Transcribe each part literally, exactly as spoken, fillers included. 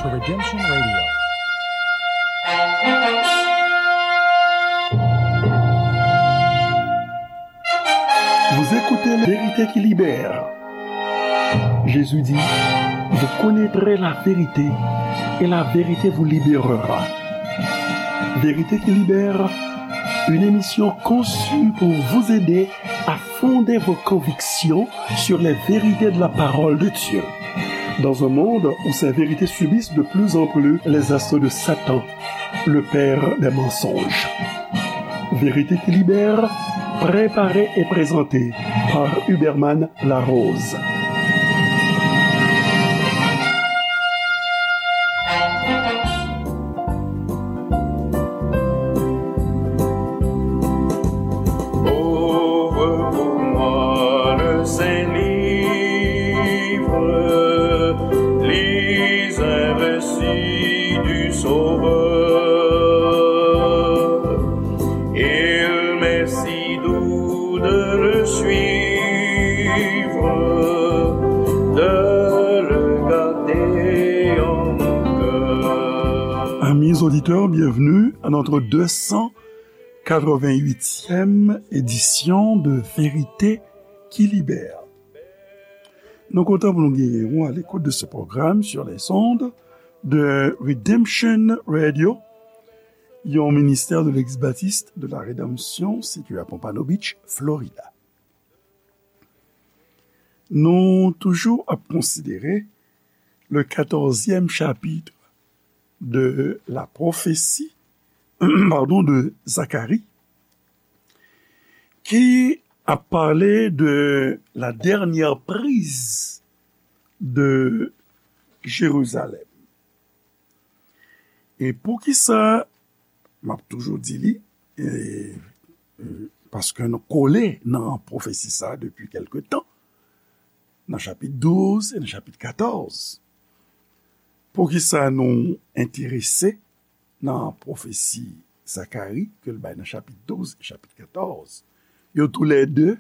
to Redemption Radio. Vous écoutez la vérité qui libère. Jésus dit, vous connaîtrez la vérité et la vérité vous libérera. Vérité qui libère, une émission conçue pour vous aider à fonder vos convictions sur les vérités de la parole de Dieu. Dans un monde où ces vérités subissent de plus en plus les assauts de Satan, le père des mensonges. Vérité qui libère, préparée et présentée par Huberman Larose. Ouvre pour moi le saint livre, lis un récit du Sauveur. Il m'est si doux de le suivre, de le garder en mon cœur. Amis auditeurs, bienvenue à notre deux cent quatre-vingt-huitième édition de Vérité qui libère. Nou kontan pou nou genyen w à l'écoute de ce programme sur les ondes de Redemption Radio, yon ministè de l'ex-baptiste de la Rédemption situé à Pompano Beach, Florida. Nou toujou ap konsidere le quatorzième chapitre de la prophétie, pardon, de Zacharie, ki ap pale de la dernière prise de Jérusalem. E poukisa m ap toujou di li, e, e, paske nou kole nan pwofesi sa a depi kèlke tan, nan chapit douz e nan chapit katòz. Poukisa nou enterese nan pwofesi Zakari ke l bay nan chapit douz e chapit katòz? Yo toulède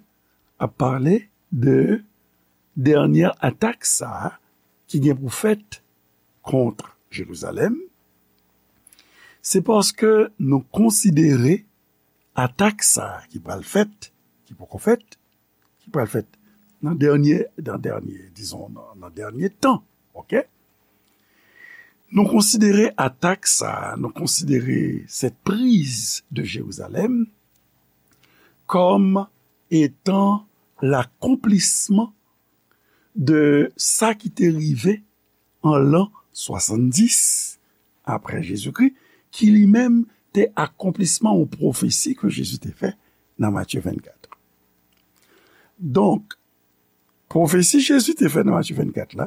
ap pale de dènyè atak sa a ki gen pou fèt kont Jerizalèm. Se paske nou konsidere atak sa a ki pral fèt, ki poko fèt, ki pral fèt nan dènyè, nan dènyè, dizon, nan, nan dènyè tan, oke? Nou konsidere atak sa a, nou konsidere cette prise de Jérusalem comme étant l'accomplissement de sa ki te rive an lan swasanndis apre Jezikri, ki li menm te akonplisman yon pwofesi ke Jezi te fè nan Matye vennkat. Donk, pwofesi Jezi te fè nan Matye vennkat la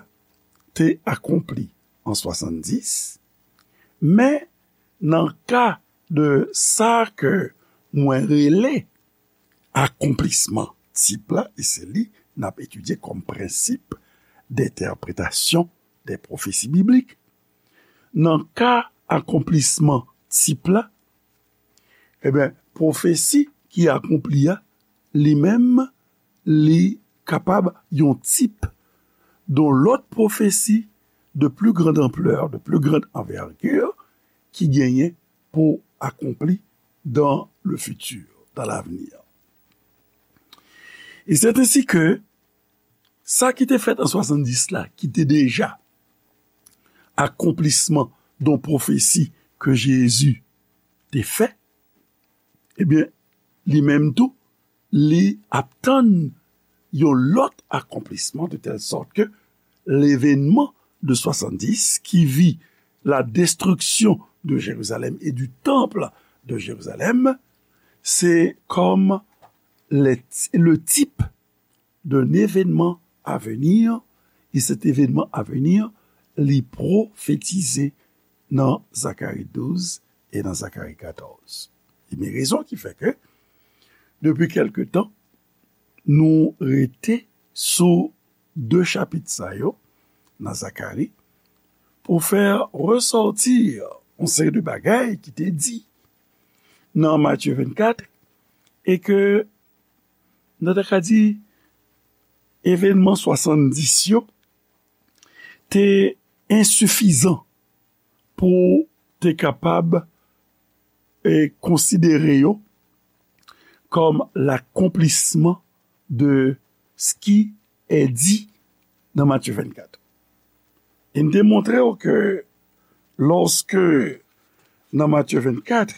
te akonpli an swasanndis, men nan ka de sa ke mwen rele akonplisman tip la, e se li n ap etidye kòm prensip d'entèpretasyon dè pwofesi biblik. Nan ka akonplisman tip la, ebyen, pwofesi ki akonpli a, li menm, li kapab yon tip de lòt pwofesi de plus grande ampleur, de plus grande envergure, ki genyen pou akonpli dans le futur, dans l'avenir. Et c'est ainsi que sa ki te fèt an swasanndis la, ki te deja akonplisman de yon pwofesi ke Jezi te fè, ebyen, li menm tou, li ap tann yon lòt akonplisman, de telle sorte que l'événement de soixante-dix qui vit la destruction de Jérusalem et du temple de Jérusalem, c'est comme les- le type d'un événement à venir, et cet événement à venir, li pwofetize nan Zakari douz e nan Zakari katòz. E men rezon ki fè ke, depi kèlke tan, nou rete sou de chapit sa yo nan Zakari pou fè resòti yon seri de bagay ki te di nan Matye vennkat, e ke nou ta ka di evènman swasanndis yo te ensifizan pou te kapab e konsidere yo kòm l'accomplissement de ce qui est dit nan Matye vennkat. E n te montre w ke lòske nan Matye vennkat,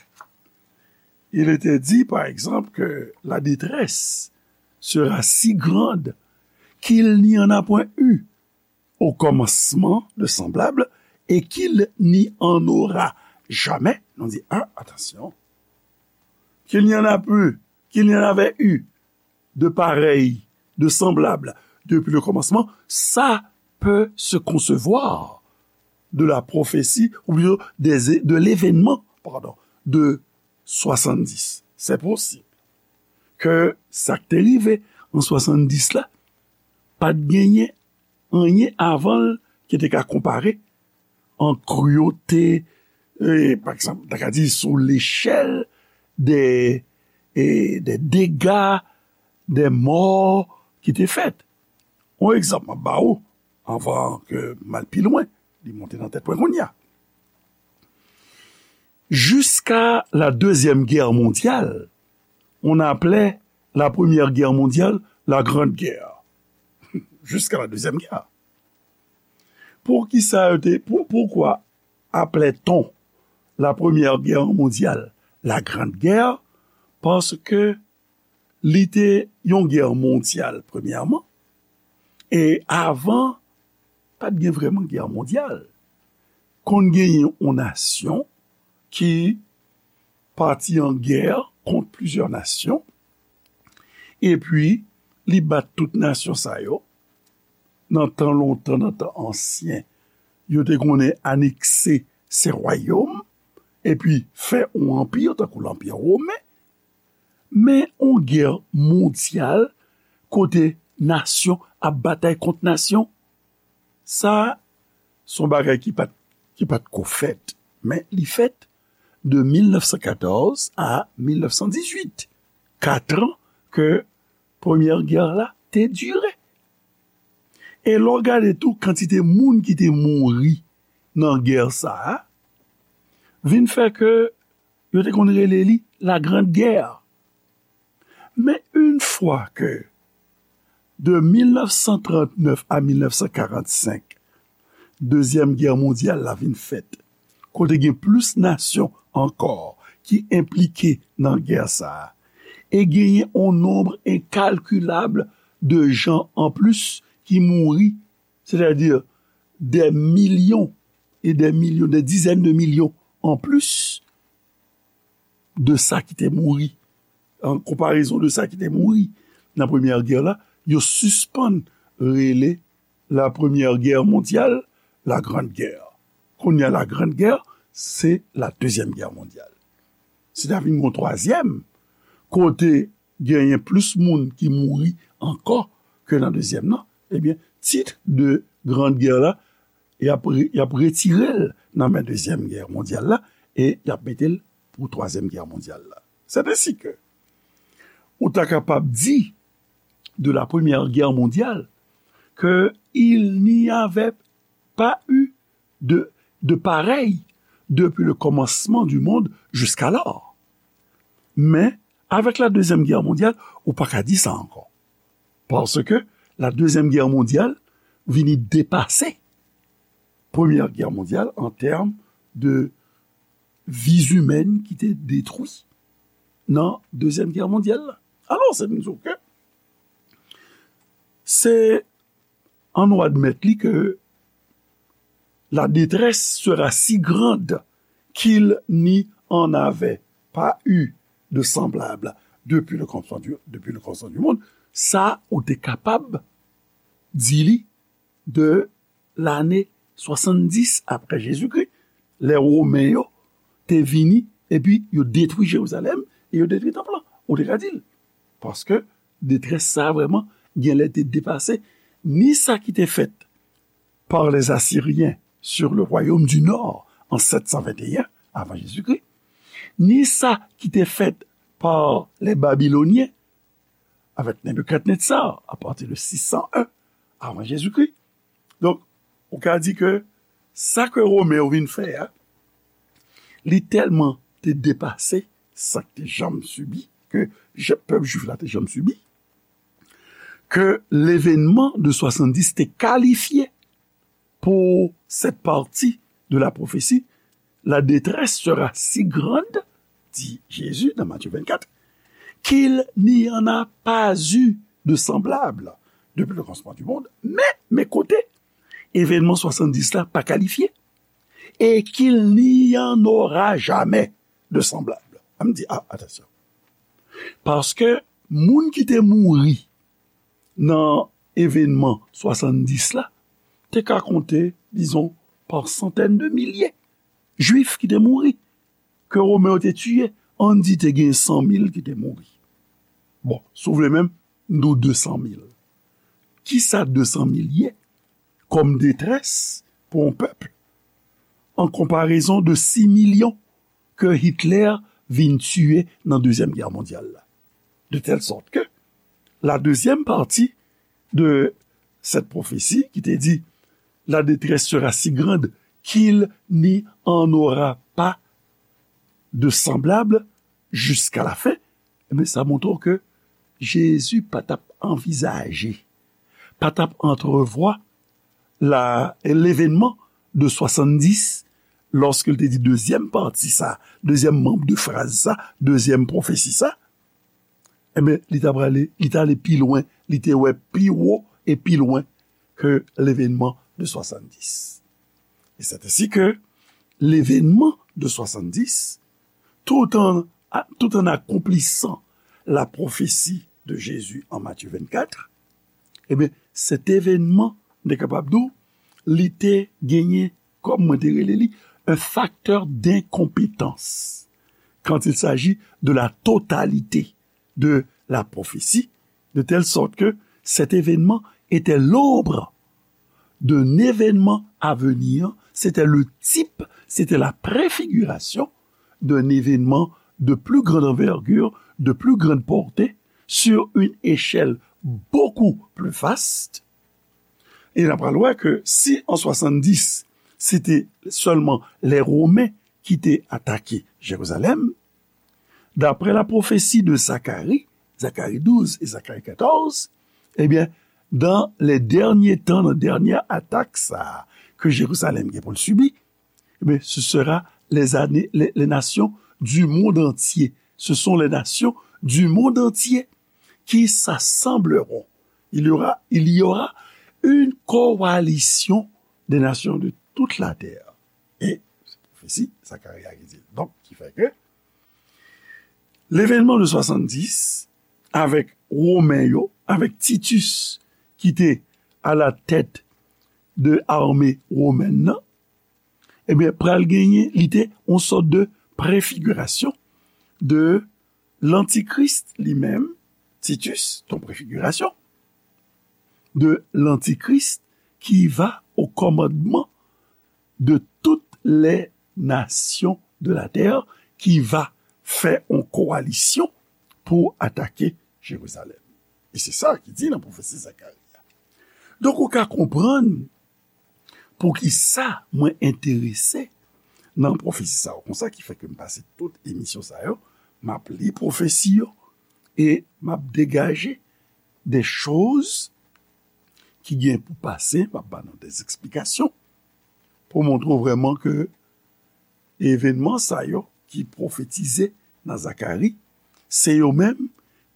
il était dit, par exemple, que la détresse sera si grande qu'il n'y en a point eu au commencement de semblable et qu'il n'y en aura jamais. Nou di, ah, attention. Qu'il n'y en a plus, qu'il n'y en avait eu de pareil, de semblable depuis le commencement, ça peut se concevoir de la prophétie, ou plutôt des, de l'événement, pardon, de soixante-dix. C'est possible que sa ki te rive an swasanndis la, pa t genyen anyen avan l ki te ka konpare an kriyòl, e, pa egzanp, ta ka di sou lechèl de, e, de dega, de mò ki te fèt. Yon egzanp m ap ba ou, anvan ke m al pi lwen, li monte nan tèt mwen kounye a. Jusqu'à la Deuxième Guerre mondiale, on appelait la Première Guerre mondiale la Grande Guerre. Jusqu'à la Deuxième Guerre. Poukisa yo te, pou, poukwa aplè-t-on la Première Guerre mondiale la Grande Guerre? Paske li te yon gè mondyal, premyèman, e avan, pa t gen vrèman gè mondyal. Konn genyen yon nasyon ki pati an gè kont plizyè nasyon, epi li bat tout nasyon sa yo. Nan tan lontan, nan tan ansyen, yo te konnen anekse se wayòm, epi fè yon anpi, tankou lanpi women. Men yon gè mondyal, kote nasyon ap batay kont nasyon, sa, se yon bagay ki pa t, ki pa t ko fèt. Men li fèt de mil nèf san katòz a mil nèf san dizuit. Kat an ke premyè gè la te dire. E lè w gade tou kantite moun ki te mouri nan gè sa a, vin fè ke yo te konn rele li la Grande Guerre. Men yon fwa ke de mil nèf san trannèf a mil nèf san karannsenk, Dezyèm Gè mondyal la vin fèt, kote gen plis nasyon ankò ki enplike nan gè sa a, e genyen yon nonb enkalkilab de jan anplis ki mouri, sètadi dè milyon e dè milyon, dè dizèn de milyon anplis de sa ki te mouri, an konparezon de sa ki te mouri nan premyè gè la, yo sispann rele la Première Guerre mondiale la Grande Guerre. Kounye a, la Grande Guerre, se la Deuxième Guerre mondiale. Si ta vin gon twazyèm, kote genyen plis moun ki mouri ankò ke nan dezyèm nan, ebyen, tit de Grande Guerre la, y ap re-, y ap retire l nan men Dezyèm Gè mondyal la, e y ap mete l pou Twazyèm Gè mondyal la. C'est ainsi que, ou ta kapab di de la Première Guerre mondiale que il n'y avait pas eu de, de pareil depuis le commencement du monde jusqu'alors. Men, avèk la Dezyèm Gè mondyal, ou pa ka di sa ankò. Paske la Dezyèm Gè mondyal vini depase Premyè Gè mondyal an tèm de vi imèn ki te detwi nan Dezyèm Gè mondyal la. Alò, se di w ke se an nou admèt li ke la détresse sera si grande qu'il n'y en avait pas eu de semblable depuis le commencement du, depuis le commencement du monde. Sa, ou te kapab di li de lane swasanndis apre Jezikri, lè Women yo te vini, epi yo detwi Jerizalèm, e yo detwi tanp lan. Ou te ka di l. Paske detrès sa a vrèman, genlè te depase ni sa ki te fèt par les Assyriens sur le royaume du Nord en sept cent vingt et un avant Jésus-Christ, ni sa ki te fèt par les Babyloniens avec Nebuchadnezzar à partir de six cent un avant Jésus-Christ. Donk, ou ka di ke sa ke Women yo vin fè a, li tèlman te depase sa k te janm sibi, ke je- pèp jwif la te janm sibi, ke levenman de swasanndis te kalifye pour cette partie de la prophétie, la détresse sera si grande, dit Jésus dans Matthieu vingt-quatre, qu'il n'y en a pas eu de semblable depuis le commencement du monde. Men, men kote, evènman swasanndis la pa kalifye, et qu'il n'y en aura jamais de semblable. An m di, ah, atansyon. Paske moun ki te mouri nan evènman swasanndis la, te ka konte, dizon, pa santèn de milye jwif ki te mouri, ke Women yo te tiye, ann di te gen san mil ki te mouri. Bon, si w vle menm, m di w de san mil. Kisa de san mil ye kòm detrès pou yon pèp an konparezon de sis milyon ke Hitler vin tiye nan Dezyèm Gè Mondyal la? De telle sorte que la deuxième partie de cette prophétie qui te dit la détresse sera si grande qu'il n'y en aura pas de semblable jusqu'à la fin, ebyen, sa montre w ke Jezi pa t ap anvizaje, pa t ap antrevwa la, levenman de swasanndis, lòske l te di dezyèm pati sa, dezyèm manm de fraz sa, dezyèm pwofesi sa, ebyen, li t ap ale, li t ale pi lwen, li te wè pi wo e pi lwen ke levenman de swasanndis. Et c'est ainsi que l'événement de soixante-dix, tout en, tout en accomplissant la prophétie de Jésus en Matthieu vingt-quatre, ebyen, cet événement, nou te kapab di w, li te genyen, kòm mwen te rele li, un facteur d'incompétence quand il s'agit de la totalité de la prophétie, de telle sorte que cet événement était l'ombre d'un événement à venir, c'était le type, c'était la préfiguration d'un événement de plus grande envergure, de plus grande portée, sur une échelle beaucoup plus vaste. E n ap pral wè ke si an swasanndis, se te sèlman lè Women ki te atake Jerizalèm, daprè la pwofesi de Zakari, Zakari douz e Zakari katòz, ebyen, dans les derniers temps, nan dènyè atak sa a ke Jerizalèm gen pou l sibi, ebyen, ce sera les années, les, les nations du monde entier. Ce sont les nations du monde entier qui s'assembleront. Il y aura, il y aura une coalition des nations de toute la terre. E se pwofesi Zakarya ki di l. Donk, ki fè ke levenman de swasanndis, avèk Women yo, avèk Titus ki te a la tèt de ame womèn nan, ebyen, pral genyen, li te yon sòt de prefigirasyon de lantikris li menm, Titus, ton prefigirasyon de lantikris qui va au commandement de toutes les nations de la terre, qui va fè yon kowalisyon pou atake Jerizalèm. E se sa ki di nan pwofesi Zakari a. Donk, ou ka konprann poukisa mwen enterese nan pwofesi sa yo. Konsa ki fè ke m pase tout emisyon sa yo, m ap li pwofesi yo e m ap degaje de choz ki gen pou pase, m ap ba nou de eksplikasyon pou montre w vrèman ke evenman sa yo ki pwofetize nan Zakari, se yo menm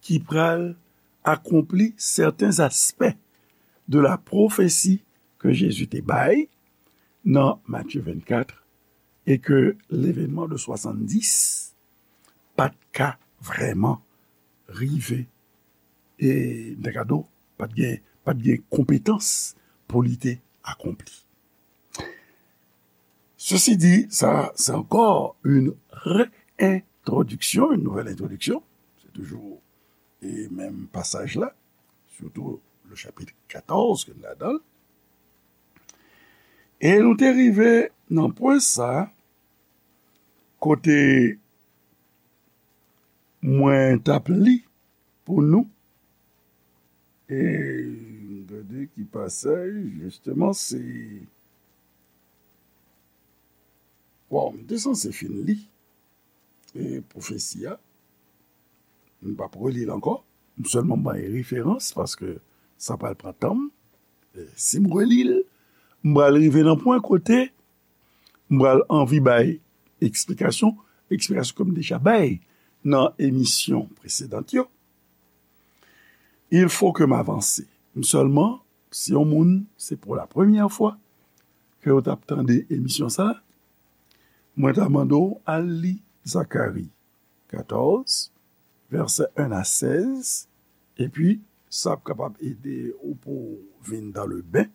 ki pral akonpli sèten aspè de la pwofesi ke Jezi te bay nan Matye vennkat, e ke levenman de swasanndis pa t ka vrèman rive, e, m ta ka di w, pa t gen, pa t gen konpetans pou li te akonpli. Ceci dit, sa, c'est encore une réintroduction, une nouvelle introduction. Se toujou, e, menm pasaj la, surtout le chapitre quatorze ke n ladan l. E nou te rive nan pwen sa, kote mwen t ap li pou nou. E gade ki pasaj, jisteman, se, Bon, m te sanse fin li e pwofesi a. M p ap reli l ankò. M sèlman bay referans paske sa pral pran tan m. E si m reli l, m pral rive nan pwen kote m pral anvi bay eksplikasyon, eksplikasyon ke m deja bay nan emisyon presedan yo. Il faut que m avanse. M sèlman, si yon moun, se pou la premyè fwa ke yo t ap tande emisyon sa, mwen ta mande w al li Zakari katòz, vèsè en a sèz, epi sa ap kapab ede ou pou w vin dans le bain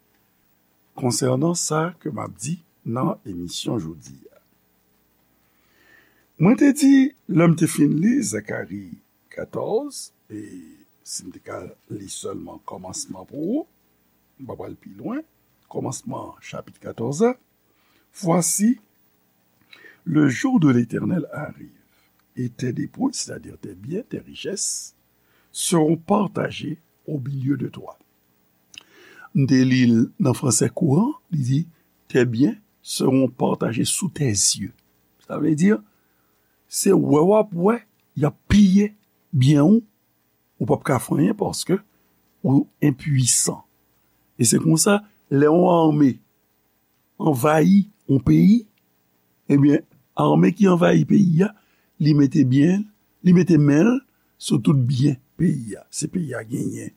konsènan sa ke m ap di nan emisyon jodi a. Mwen te di, lè m te fin li Zakari katòz, e si m te ka li sèlman kòmansman pou ou, m pa pral pi lwen, kòmansman chapit katòz la, Voici, le jour de l'Éternel arrive, et tes dépouilles, c'est-à-dire tes biens, tes richesses, seront partagées au milieu de toi. M te li l nan fransè kouran, li di, tes biens seront partagés sous tes yeux. Sa vle di, se wè w ap wè, y ap piye byen ou, ou p ap ka fè anyen paske ou enpwisan. E se konsa, lè yon ame anvayi yon peyi, ebyen, ame ki anvayi peyi a, li mete byen, li mete men l sou tout byen peyi a. Si peyi a genyen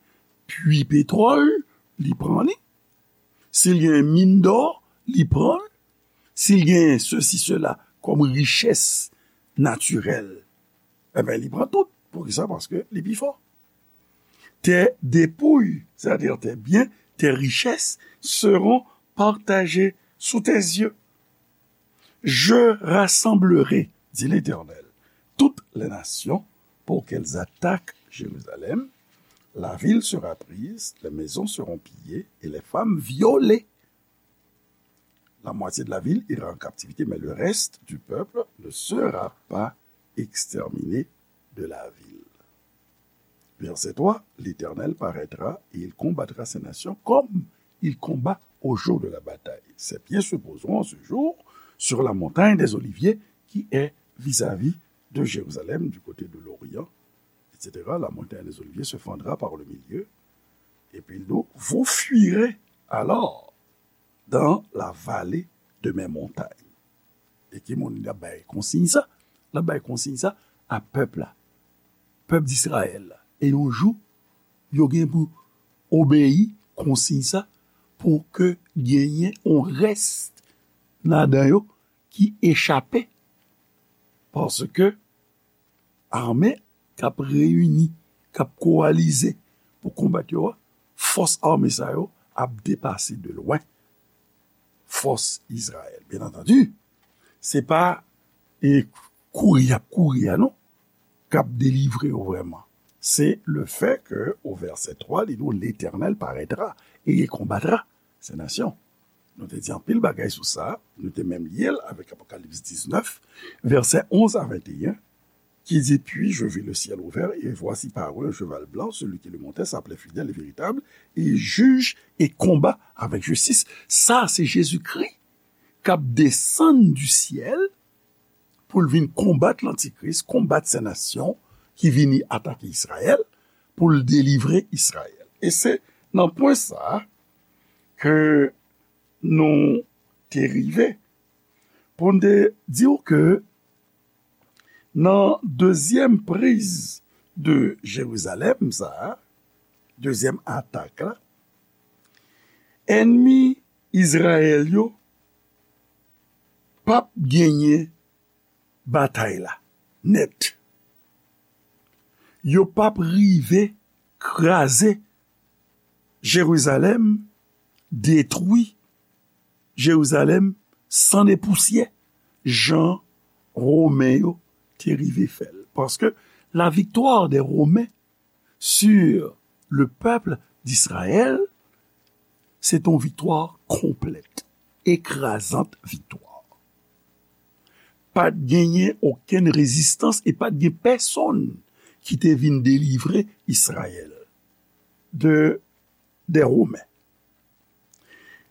pwi petwòl, li pran li. Si l genyen min dò, li pran l. Si l genyen sesi, sela, kòm richès natirèl, ebyen, li pran tout. Poukisa? Paske li pi fò. Tes dépouilles, c'est-à-dire tes biens, tes richesses, seront partagées sous tes yeux. Je rassemblerai, dit l'Éternel, toutes les nations pour qu'elles attaquent Jérusalem. La ville sera prise, les maisons seront pillées et les femmes violées. La moitié de la ville ira en captivité, mais le reste du peuple ne sera pas exterminé de la ville. Verset trois, l'Éternel paraîtra et il combattra ces nations comme il combat au jour de la bataille. Ses pieds se poseront en ce jour sur la montagne des Oliviers qui est vis-à-vis de Jérusalem, du côté de l'Orient, et cetera. La montagne des Oliviers se fendra par le milieu, et puis il dit, vous fuirez alors dans la vallée de mes montagnes. E ki moun l ap bay konsiy sa? L ap bay konsiy sa a pèp la, pèp Disrayèl la. E yon jou, yo gen pou obeyi konsiy sa pou ke genyen yon rès ladan yo ki echape. Paske ame k ap reyini, k ap kowalize pou konbat yo a, fòs ame sa yo ap depase de lwen fòs Izrayèl. Byen antandi, se pa e kouri y ap kouri a non k ap delivre yo vrèman. Se le fè ke o vèsè twa, li di w, Letènèl parètra e il konbatra se nasyon. Nou te di anpil bagay sou sa, nou te menm lye l avèk Apokalips diznèf, vèsè onz a venteyen, ki di, puis je vis le ciel ouvert, et voici parut un cheval blanc, celui qui le montait s'appelait Fidèle et Véritable, et il juge et combat avec justice. Sa, se Jezikri k ap desann du ciel pou l vin konbat Lantikris, konbat Sen Nasyon ki vini atake Izrayèl, pou l delivre Izrayèl. E se nan pwen sa a ke nou te rive pou n te di w ke nan dezyèm priz de Jerizalèm sa a, dezyèm atak la, ènmi Izrayèl yo p ap genyen batay la nèt. Yo p ap rive kraze Jerizalèm, detwi Jerizalèm san e pousyè, jan Women yo te rive fè l. Paske la victoire des Romains sur le peuple d'Israël, se t on viktwa konplèt, ekrazant viktwa. Pa t genyen okenn rezistans e pa t gen pèsonn ki te vin delivre Izrayèl de, des Romains.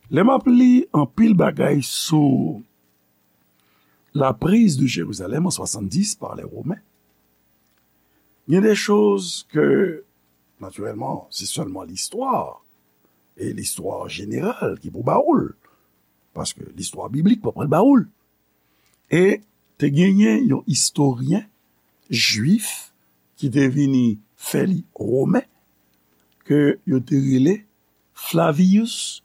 Lè m ap li anpil bagay sou, la prise de Jérusalem en soixante-dix par les Romains, il y a des choses que, naturellement, c'est seulement l'histoire, et l'histoire générale qui pour baoul, parce que l'histoire biblique pas prendre baoul. E te genyen yon istoryen jwif ki te vini fè li romen, ke yo te rele Flavius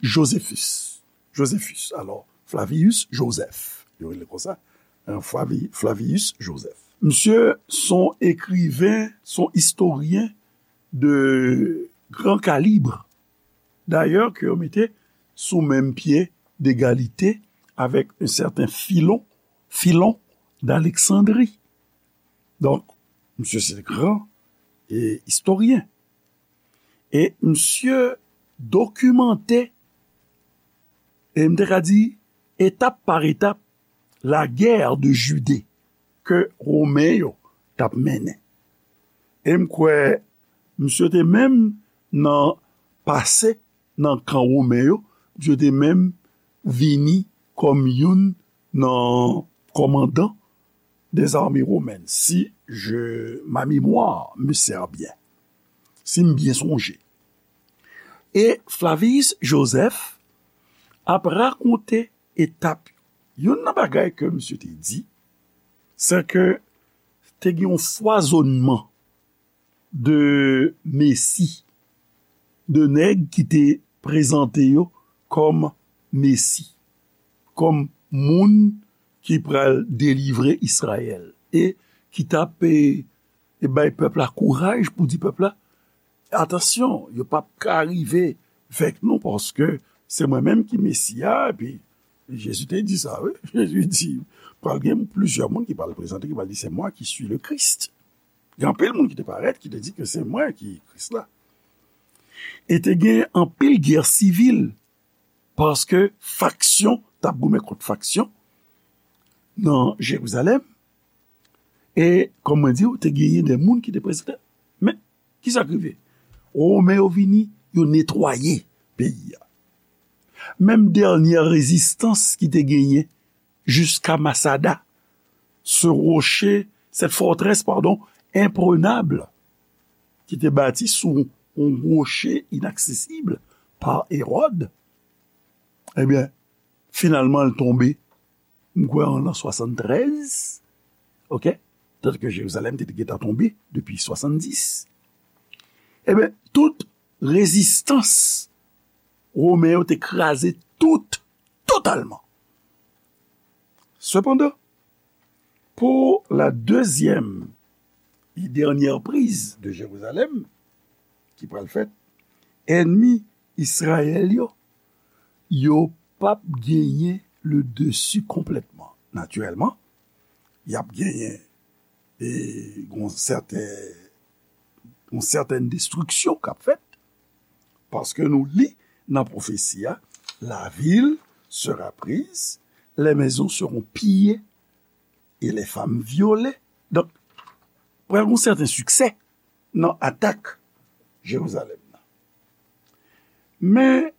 Josephus. Josephus, alò, Flavius Joseph, yo rele konsa, hein, Flavi-, Flavius Joseph. Misye son ekriven, son istoryen de gran kalib. Dayè, ke yo mete sou menm pye degalite avèk un certain Philon, Philon d'Alexandrie. Donk, misye se gran e, istoryen. E misye dokimante, e m te ka di, etap pa etap, la guerre de Judée ke Romen yo t ap mennen. E m kwè misye te menm nan pase nan kan Romen yo, misye te menm vini kòm youn nan kòmandan des armées romaines, si je, ma mémoire me sert bien, si m byen sonje. E Flavius Joseph ap rakonte etap yo. Youn nan bagay ke misye te di, se ke te gen yon fwazonnman de mesi, de nèg ki te prezante yo kòm mesi, kòm moun ki pral delivre Izrayèl, e ki t ap, e, e bay pèp la kouraj pou di pèp la, atansyon, yo p ap ka rive vèk nou, paske se mwen menm ki Mesi a. Epi Jezi te di sa, wi. Jezi di, pral gen plizyè moun ki pral prezante, ki pral di, c'est moi qui suis le Christ. Gen anpil moun ki te parèt, ki te di ke se mwen ki Kris la. E te gen anpil gè sivil, paske faksyon t ap goumen kont faksyon nan Jerizalèm. E, kòm mwen di w, te genyen de moun ki te prezante. Men, kisa k rive? Women yo vini, yo netwaye peyi a. Menm dènyè rezistans ki te genyen jiska Masada, ce rocher, cette forteresse, pardon, imprenable, ki te bati sou yon woche inaksesib pa Ewòd, ebyen, finalman, l tonbe, m kwè, an lan swasanntrèz, oke? Tandiske Jerizalèm te gentan tonbe depi swasanndis. Ebyen, tout rezistans Women yo te kraze tout, totalman. Sepandan, pou la dezyèm e dènyè priz de Jerizalèm, ki pral fèt, ènmi Izrayèl yo, yo p ap genyen le dessus konplètman. Natirèlman, y ap genyen e gon sèten, yon sètèn destriksyon k ap fèt, paske nou li nan pwofesi a, la ville sera prise, les maisons seront pillées et les femmes violées. Donk, pral gon sèten siksè nan atak Jerizalèm nan. Men,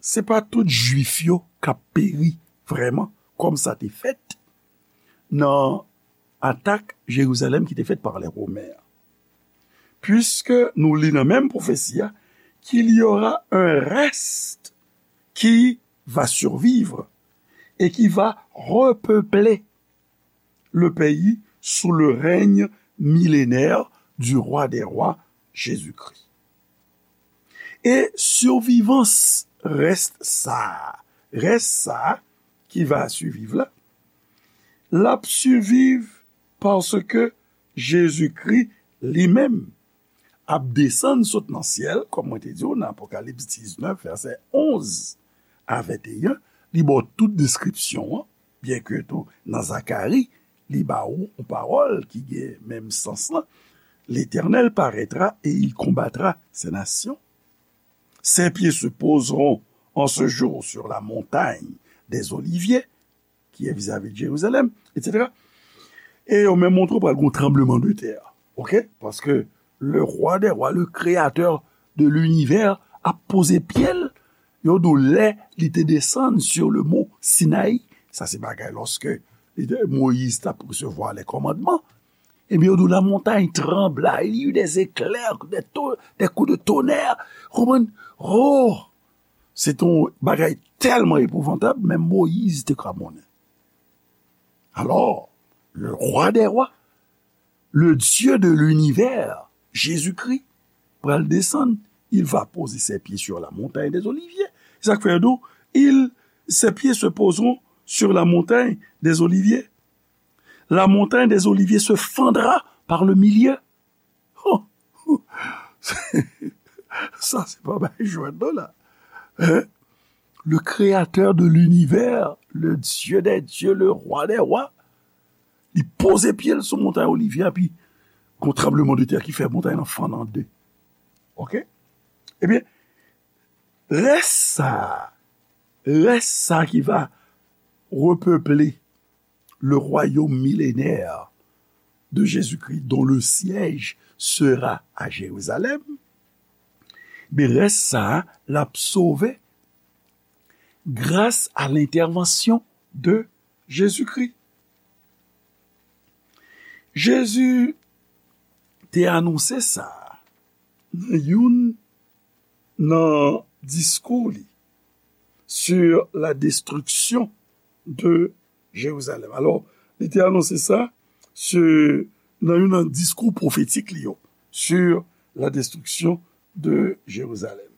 se pa tout Jwif yo k ap peri vrèman, kòm sa te fèt nan atak Jerizalèm ki te fèt pa lè Women an. Puiske nou li nan menm pwofesi a, qu'il y aura un reste qui va survivre et qui va repeupler le pays sous le règne millénaire du roi des rois, Jésus-Christ. E sivivans rès sa a, rès sa a ki va siviv la, l ap siviv paske Jezikri li menm ap desann sot nan syèl, kòm mwen te di w nan Apokalips diznèf, vèsè onz a venteyen, li ba w tout deskripsyon an, byenke tou nan Zakari, li ba w yon pawòl ki gen menm sans lan, L'Éternel paraîtra et il combattra ces nations. Ses pieds se poseront en ce jour sur la montagne des Oliviers, ki ye vizavi Jerizalèm, etsetera. E yo menm montre w pral gen yon tranbleman de tè. Oke? Paske le roi des rois, le créateur de l'univers, ap poze pye l, yo di w lè li te desann sur le mont Sinaï, Sa se bagay lòske Moyiz t ap resevwa les commandements. Ebyen, yo di w la montagne trembla, il y eut des éclairs, des to-, des coups de tonnerre. Konprann? Oh! Se te yon bagay tèlman epouvantab, menm Moyiz te kramonnen. Alors, le roi des rois, le Dieu de l'univers, Jésus-Christ, pral desann, il va poser ses pieds sur la montagne des Oliviers. Sa k fè yo di w, il, ses pieds se poseront sur la montagne des Oliviers. La montagne des Oliviers se fendra par le milieu. Oh! Sa se pa bay jwèt non la. Hein? Le créateur de l'univers, le Dieu des dieux, le roi des rois, li poze pye l sou montay Olivye a, epi gon tranblemanntè ki fè montay lan fann an de. Oke? Ebyen, rès sa, rès sa ki va repeple le royaume millénaire de Jésus-Christ, dont le siège sera à Jérusalem, men rès sa a, l ap sove gras a lentèvansyon de Jezikri. Jezi te anonse sa nan youn nan diskou li sur la destruction de Jérusalem. Alò, li te anonse sa sur, nan youn nan diskou pwofetik li yo sur la destruction de Jérusalem.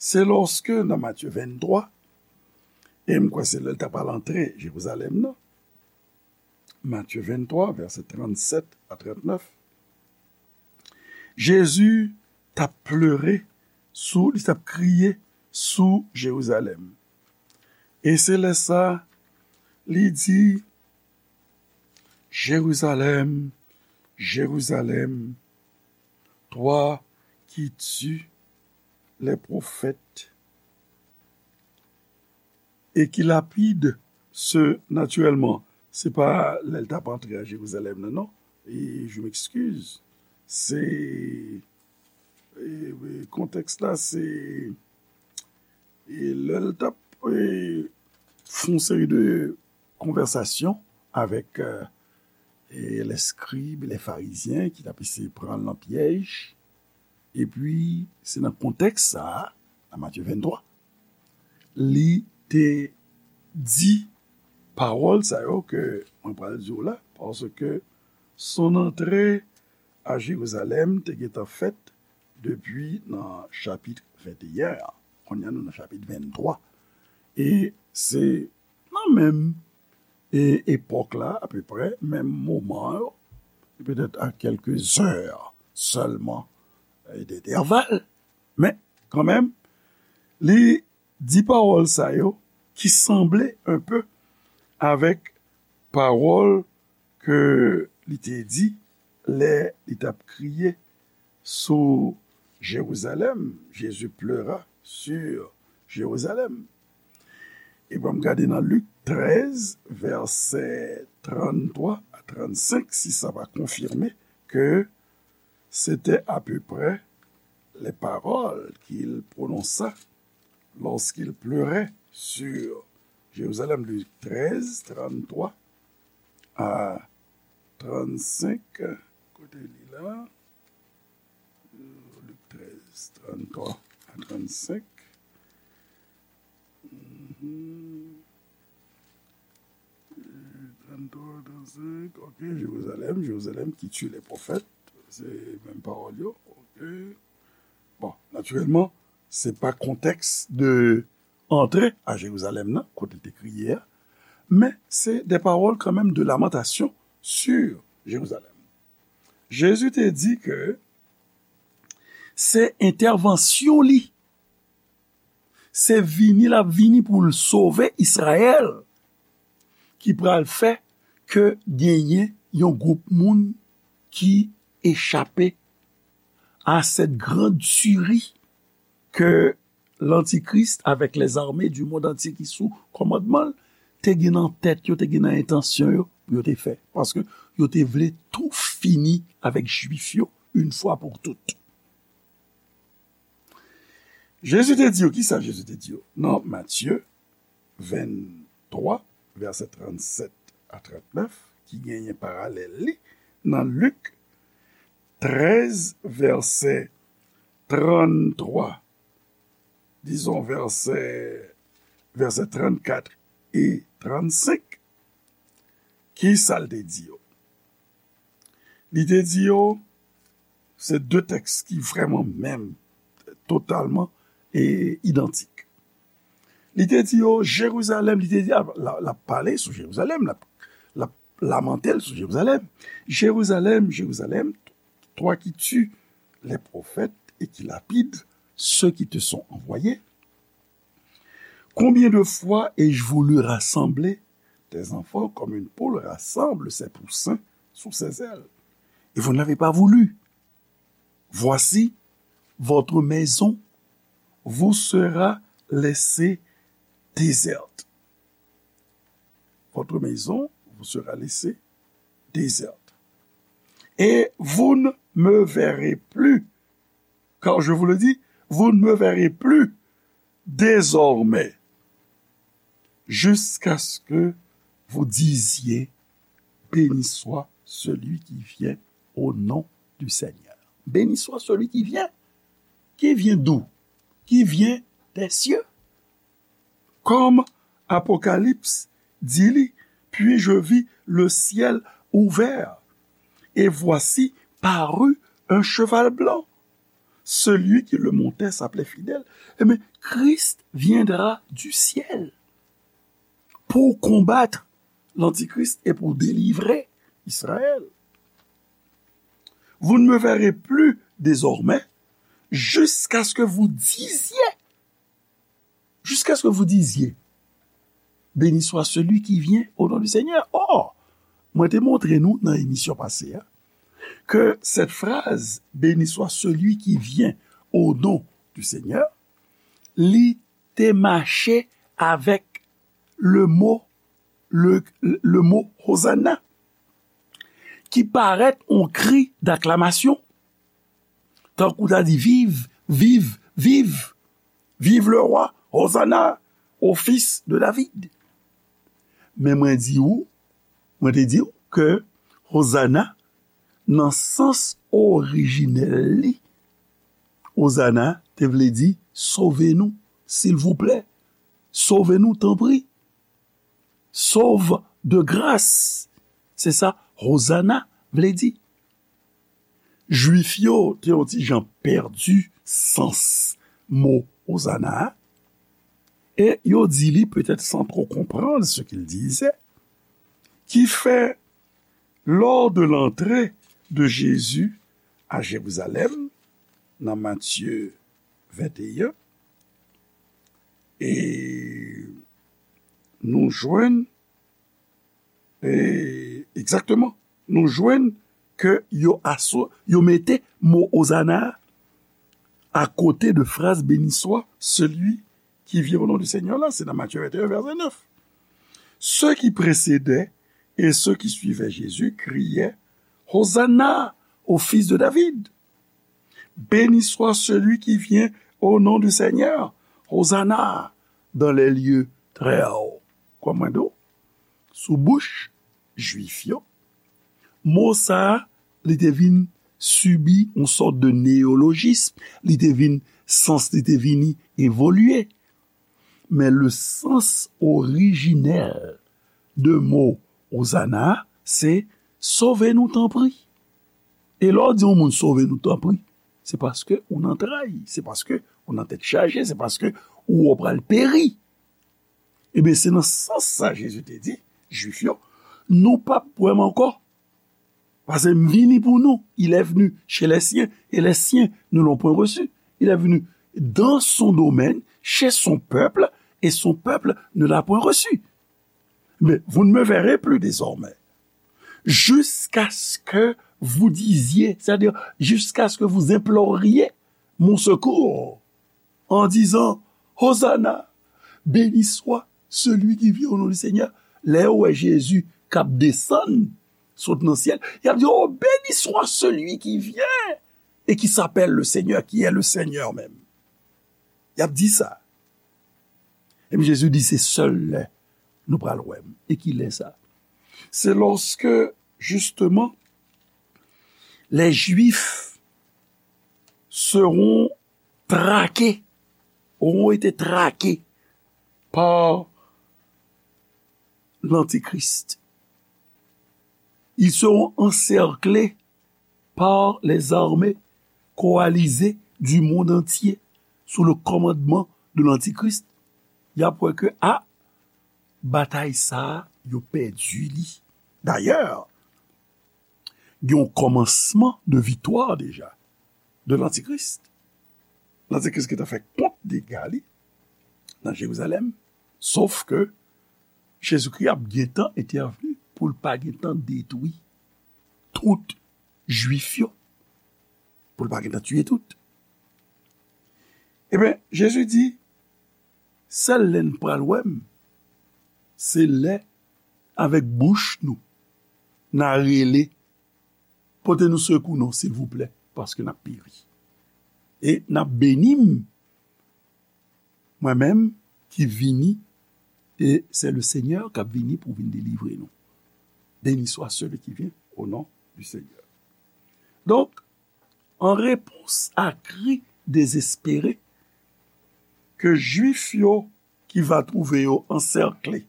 Se lòske nan Matye venntwa, e m kwè se lè l ta pral antre Jerizalèm nan, Matye venntwa, vèsè trannsèt a trannèf, Jezi t ap plere sou, li t ap kriye sou Jerizalèm. E se lè sa, li di, Jérusalem, Jérusalem, toi qui tues les prophètes et qui lapides ceux, natirèlman, se pa lè l t ap antre a Jerizalèm nan, non. E, je m'excuse. Se, e, e, kontèks la, se, e, lè l t ap, e, fè yon seri de konvèsasyon avèk, e, e, les scribes, les pharisiens, ki t ap eseye pran l nan pyèj. Epi, se nan kontèks sa a, nan Matye venntwa, li te di pawòl sa yo ke mwen pral di w la, paske son antre a Jerizalèm te gentan fèt depi nan chapit venteyen an. Kounye a, nou nan chapit venntwa. E se nan menm, e, epòk la, apeprè, menm moman yo, petèt a kèlke zè sèlman, e, dentèval. Men, kanmenm, li di pawòl sa yo ki sanble enpe avèk pawòl ke li te di lè li t ap kriye sou Jerizalèm. Jésus pleura sur Jérusalem. E ban m gade nan Lik trèz, vèsè tranntwa a trannsenk, si sa pa konfime ke se te apeprè les paroles qu'il prononça lorsqu'il pleurait sur Jérusalem, Lik trèz, tranntwa a trannsenk. Kote li la? Lik trèz, tranntwa a trannsenk. Mhm. Tranntwa, trannsenk, ok, Jérusalem, Jérusalem qui tue les prophètes, se menm pawòl yo, ok. Bon, natirèlman, se pa kontèks de antre a Jerizalèm nan, kote l te kriye a, men se de pawòl kanmenm de lamantasyon sur Jérusalem. Jezi te di ke se entèvansyon li, se vini l ap vini pou l sove Izrayèl, ki pral fè ke genyen yon gwoup moun ki echape à cette grande tuerie que l'Antichrist avec les armées du monde entier ki sou kòmandman l te gen nan tèt yo, te gen nan entansyon yo pou yo te fè. Paske yo te vle tou fini avèk Jwif yo, yon fwa pou tout. Jezi te di yo, kisa Jezi te di yo? Nan Matye venntwa, vèsè trannsèt a trannèf, ki genyen paralèl li nan Lik trèz, vèsè tranntwa, dizon, vèsè, vèsè trannkat e trannsenk, ki sa l te di yo? Li te di yo, se de tèks ki vrèman menm, totalman e idantik. Li te di yo, Jerizalèm, li te di, l ap, l ap pale sou Jerizalèm, l ap, l ap lamante l sou Jerizalèm. Jerizalèm, Jerizalèm, toi qui tues les prophètes et qui lapides ceux qui te sont envoyés, combien de fois ai-je voulu rassembler tes enfants comme une poule rassemble ses poussins sous ses ailes, et vous n'avez pas voulu. Voici, votre maison vous sera laissée déserte. Votre maison vous sera laissée déserte. Et vous ne me verrez plus, car je vous le dis, vous ne me verrez plus désormais, jusqu'à ce que vous disiez, béni soit celui qui vient au nom du Seigneur. Béni soit celui qui vient. Qui vient d'où? Qui vient des cieux. Comme Apocalypse dit, puis je vis le ciel ouvert, et voici parut un cheval blanc. Celui qui le montait s'appelait Fidèle. Eh bien, Christ viendra du ciel pour combattre l'Antichrist et pour délivrer Israël. Vous ne me verrez plus désormais jusqu'à ce que vous disiez, jusqu'à ce que vous disiez, béni soit celui qui vient au nom du Seigneur. Or, mwen te montre nou nan emisyon pase a, ke cette phrase, béni soit celui qui vient au nom du Seigneur, li te mache avèk le mo, le, le mo Hosanna, ki parèt yon kri d'aklamasyon, tankou ta di, viv, viv, viv, viv le roi, Hosanna au fils de David. Men mwen di ou, mwen te di ou ke Hosanna, nan sans orijinèl li, Hosanna te vle di, sove nou, silvouplè, sove nou, tanpri. Sauve de grâce. Se sa Hosanna vle di. Jwif yo te yon ti jan pèdi sans mo Hosanna a, e yo di li, peut-être sans trop comprendre ce qu'il disait, qui fait, lors de l'entrée de Jésus à Jérusalem, nan Matye venteyen, e nou jwenn, e, egzakteman, nou jwenn ke yo aso-, yo mete mo Hosanna a kote de fraz béni soit celui qui vient au nom du Seigneur la, se nan Matye venteyen, vèsè nèf. Ceux qui précédaient et ceux qui suivaient Jésus criaient, Hosanna au fils de David. Béni soit celui qui vient au nom du Seigneur. Hosanna dans les lieux très hauts. Kòman do? Sou bouch Jwif yo, mo sa a, li te vin sibi yon sòt de neyolojism, li te vin, sans li te vini evolye. Men le sans orijinèl de mo Hosanna, se sove nou tanpri. E lè w di yon moun sove nou tanpri, se paske ou nan tray, se paske ou nan tèt chaje, se paske ou wè w pral peri. Ebyen, se nan sans sa Jezi te di Jwif yo, nou p ap wè m ankò. Paske m vini pour nous. Il est venu chez les siens, et les siens ne l'ont point reçu. Il est venu dans son domaine, chez son peuple, et son peuple ne l'a point reçu. Mais vous ne me verrez plus désormais. Jusqu'à ce que vous disiez, c'est-à-dire jusqu'à ce que vous imploriez mon secours, en disant, Hosanna, béni soit celui qui vient au nom du Seigneur. Lè yo wè Jezi k ap desann, sot nan syèl, y ap di, oh, béni soit celui qui vient et qui s'appelle le Seigneur, qui est le Seigneur même. Y ap di sa. Epi Jezi di, se sèl lè Nou pral wè m. E ki lè sa? Se lorsque, justement, les Juifs seront traqués, auront été traqués par l'Antichrist. Ils seront encerclés par les armées coalisées du monde entier sous le commandement de l'Antichrist. Y ap wè ke, a, batay sa a, yo pèdi li. Dayè, gen yon kòmansman de viktwa deja de Lantikris. Lantikris ki ta fè kont dega li nan Jerizalèm, sof ke Jezikri ap gentan entèvni pou l pa gentan detwi tout Jwif yo, pou l pa gentan tiye tout. Ebyen, Jezi di, sèl lè n pral wè m, se lè avèk bouch nou, n a rele, pote nou sekou non, silvouplè, paske n ap peri. E n ap beni m, mwen menm ki vini, e se le Senyè k ap vini pou vin delivre nou. Béni soit celui qui vient au nom du Seigneur. Donk, an repons a kri dezespere ke Jwif yo ki va twouve yo ansèkle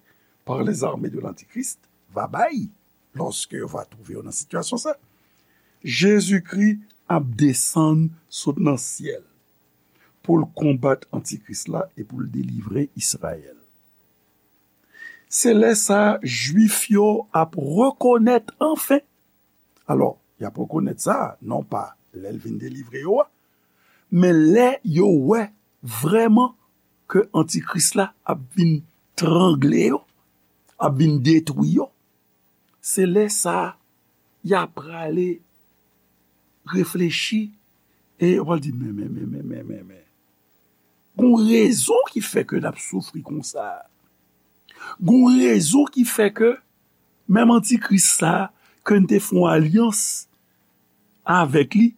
par les armées de l'Antichrist va bay, lòske yo va twouve yo nan sitiyasyon sa, Jezikri ap desann sot nan syèl pou l konbat Antikris la e pou l delivre Izrayèl. Se lè sa a, Jwif yo ap rekonèt anfen. Alò, y ap rekonèt sa, non pa lè l vin delivre yo a, men lè yo wè vrèman ke Antikris la ap vin trangle yo, ap vin detwi yo, se lè sa a, y a prale reflechi e yo pral di, men, men, men, men, men, men, men. Gon rezon ki fè ke n ap soufri konsa. Gon rezon ki fè ke menm Antikris sa a, ke n te fè yon alyans avèk li,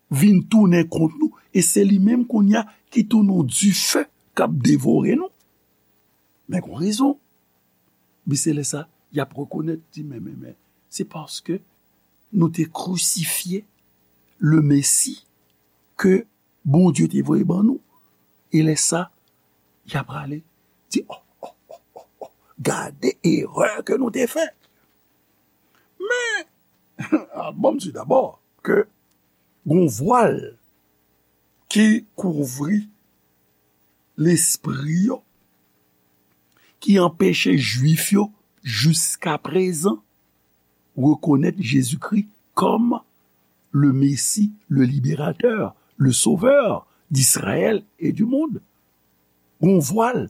vin tounen kont nou, e se li menm kounye a ki tounen yon dife k ap devore nou. Men gon rezon. Bi se lè sa, y ap rekonèt, di, men, men, men, se paske nou te krisifye le Mesi ke Bondye te voye ban nou. E lè sa, y ap prale di, oh, oh, oh, oh, oh, gade erè ke nou te fè. Men, a, bon, m di dabò ke gon vwal ki kouvri lespri yo, ki anpeche Jwif yo jiskaprezan rekonèt Jezikri kòm le Messie, le libérateur, le sauveur d'Israël et du monde. Gon vwal.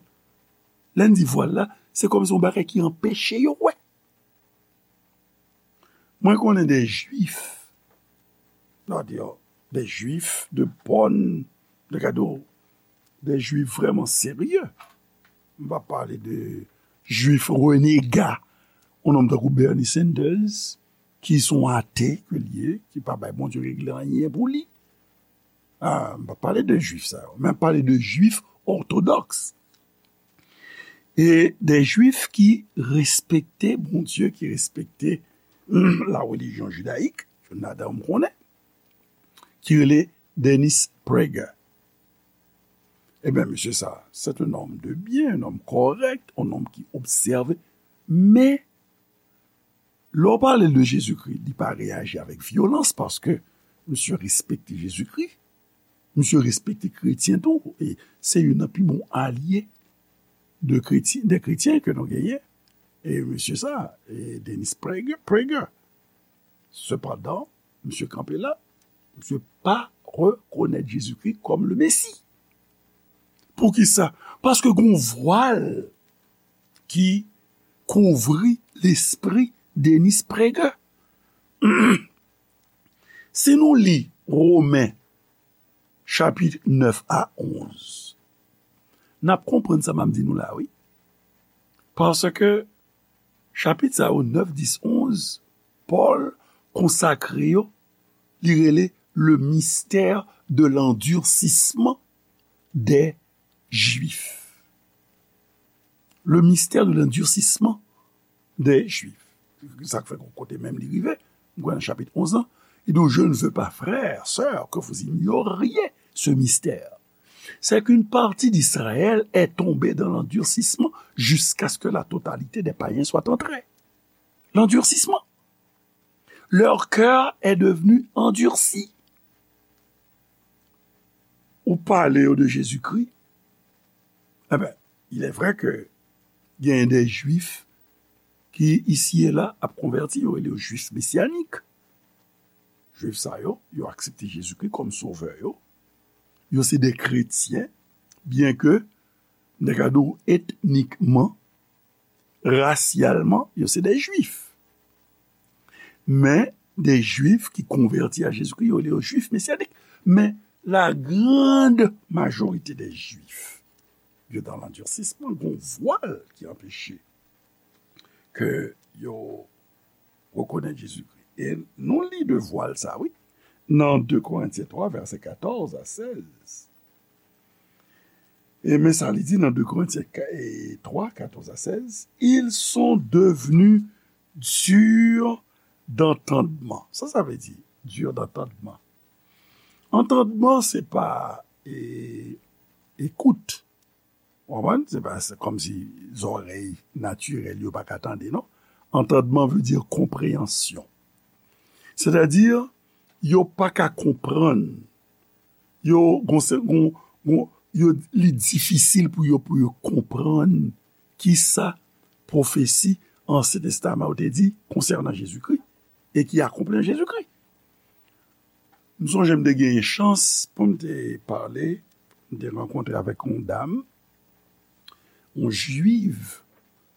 Lè n di vwal la, se kòmsi yon bagay ki anpeche yo wè. Mwen konnen de Jwif, non, de Jwif de bòn, de gade, de Jwif vrèman serye. M pa pale de Jwif renega, yon nonm tankou Bernie Sanders, ki se yon ate ke l ye, ki pa bay Bondye regle anyen pou li. A, m pa pale de Jwif sa yo, men m pale de Jwif òtodòks. E de Jwif ki respekte Bondye, ki respekte la relijyon jidayik, youn ladan yo m konnen, ki rele Dennis Prager. Ebyen, mesye sa, se yon nonm de byen, yon nonm kòrèk, yon nonm ki obsève, men lè w pale de Jezikri, li pa reyaji avèk vyolans paske misye respekte Jezikri, misye respekte kretyen tou, e se youn nan pi bon alye de kretyen, de kretyen ke nou genyen. E mesye sa, e Dennis Prager, Prager. Sepandan, misye kanpe la, misye pa rekonèt Jezikri kòm le Mesi. Poukisa? Paske gon vwal ki kouvri lespri Dennis Prager. Si nou li Women chapit nèf a onz, n ap konprann sa m ap di nou la, wi. Paske chapit sa yo, nèf, dis, onz, Pòl konsakre yo, li rele le mystère de l'endurcissement des Juifs. Le mystère de l'endurcissement des Juifs. Sa k fè kote menm li rive, m kwè nan chapit onz lan, il dit, je ne veux pas, frères, sœurs, que vous ignoriez ce mystère. C'est qu'une partie d'Israël est tombée dans l'endurcissement jusqu'à ce que la totalité des païens soit entrée. L'endurcissement. Leur cœur est devenu endurci. Ou pale yo de Jezikri, eh ben, il est vrai que gen de Jwif ki isi e la ap konvèti, yo rele yo Jwif mesyanik. Jwif sa yo, yo aksepte Jezikri kòm sovè yo. Yo se de kretyen, byen ke, m ta ka di w etnikman, rasyalman, yo se de Jwif. Men, de Jwif ki konvèti a Jezikri, yo rele yo Jwif mesyanik. Men, la grande majorité des Juifs, yo dans l'endurcissement, gon vwal ki anpeche ke yo rekonèt Jezikri. E nou li de vwal sa, wi, nan de Korentyen twa, vèsè katòz a sèz. E men sa li di nan de Korentyen twa, katòz a sèz, ils sont devenus durs d'entendement. Sa sa vle di, dur d'entendement? Antandman, se pa e, ekout. Ou konprann? Se pa, se kòmsi zòrèy natirèl yo pa ka tande, non. Antandman vle di konpreyansyon. Sètadi, yo pa ka konprann. Yo, gon, gon, gon, yo, li difisil pou yo, pou yo konprann kisa pwofesi Ansyen Testaman yo te di konsènan Jezikri e ki akonpli an Jezikri. M sonje m te genyen chans pou m te pale, m te rankontre avèk yon dam, yon jwiv.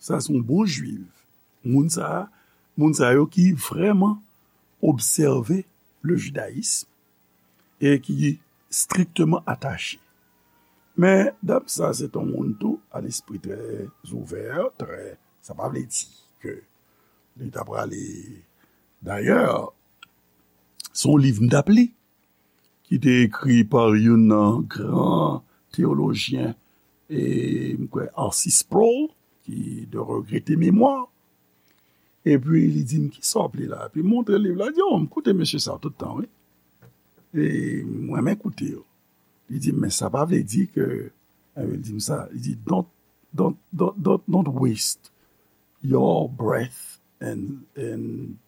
Sa se yon bon jwiv. Moun sa, moun sa yo ki vrèman obsève le jidayism e ki strikteman atache. Men, dam sa, se t yon moun tou, a lespri trè ouvè, trè, sa pa vle di ke li ta prale. Dayè, se yon liv m t ap li, ki te ekri pa youn nan gran teyolojyen, e, m kwè, Arcis Sproul, ki de regrete memwa. Epi li di m, "Kisa w ap li la?" Epi m montre liv la, di, "Oh, m koute mesye sa tout tan, wi. E m renmen koute yo." Li di m, "Men sa pa vle di ke," e, li di m sa, li di, "Don't, don't, don't, don't, don't waste your breath and, and,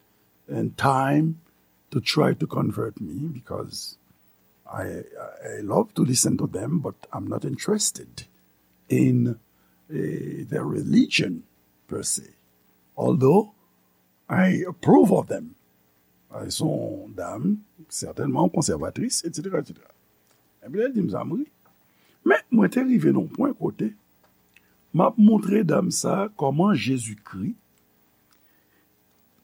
and time to try to convert me because I, I love to listen to them, but I'm not interested in, eh, their religion per se. Although I approve of them." Elles sont dames, certainement conservatrices, et cetera, et cetera. Epi lè l di m sa, m ri. Men, mwen te rive nan yon pwen kote m ap montre dam sa kòman Jezikri,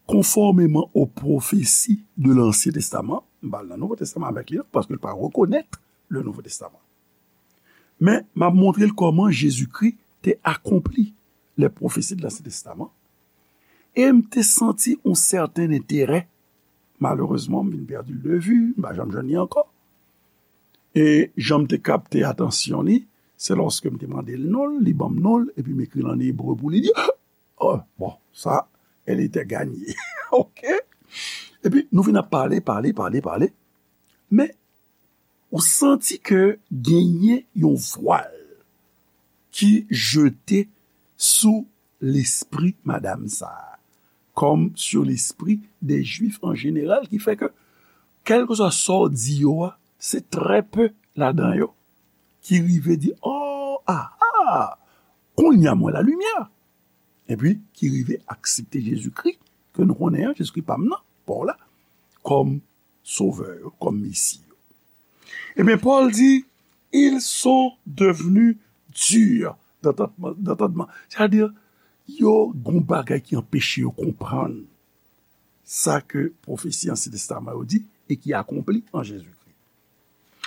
konfòmeman o pwofesi de Lansyen Testaman, m pa al nan Nouvo Testaman avèk li, non, paske l pa rekonèt le Nouveau Testament. Men, m ap montre l kòman Jezikri te akonpli les prophéties de l'Ancien Testament. E m te santi yon sèten enterè. Malerezman, m vin pèdi l de vi, m pa janm jwenn li ankò. E jan m te kapte atansyon li, se lòske m te mande l non l, li ban m non l, epi m ekri l an ebre pou li di, oh, bon, sa, elle était gagnée. Ok? Epi, nou vin ap pale, pale, pale, pale. Men, ou santi ke genyen yon vwal ki jete sou lespri madam sa a, comme sur l'esprit des Juifs en général, ki fè ke, kèlkeswa sa w di yo a, se trè pe ladan yo ki rive di, oh, ah, ah, kounye a m wè lalimyè. Epi, ki rive aksepte Jezikri, ke nou konnen an, Jezikri pa m nan, pa w la, kòm sovè yo, kòm Mesi yo. Ebyen, Pòl di, ils sont devenus durs d'entendement, d'entendement. Sètadi, yo gon bagay ki anpeche yo konprann sa ke pwofesi Ansyen Testaman yo di e ki akonpli an Jezikri.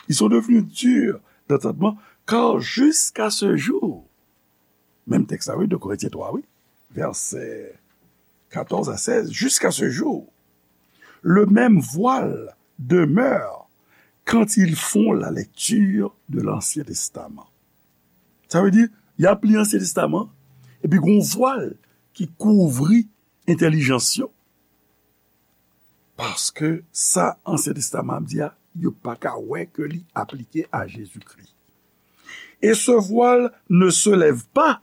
Ils sont devenus durs d'entendement, car jusqu'à ce jour, menm tèks la, wi, de Korentyen twa, wi, vèsè katòz a sèz, jusqu'à ce jour, le même voile demeure quand ils font la lecture de l'Ancien Testament. Sa vle di, y ap li Ansyen Testaman, Epi gen yon vwal ki kouvri entèlijans yo. Paske sa Ansyen Testaman ap di a, yo pa ka wè ke li aplike a Jezikri. Et ce voile ne se lève pas,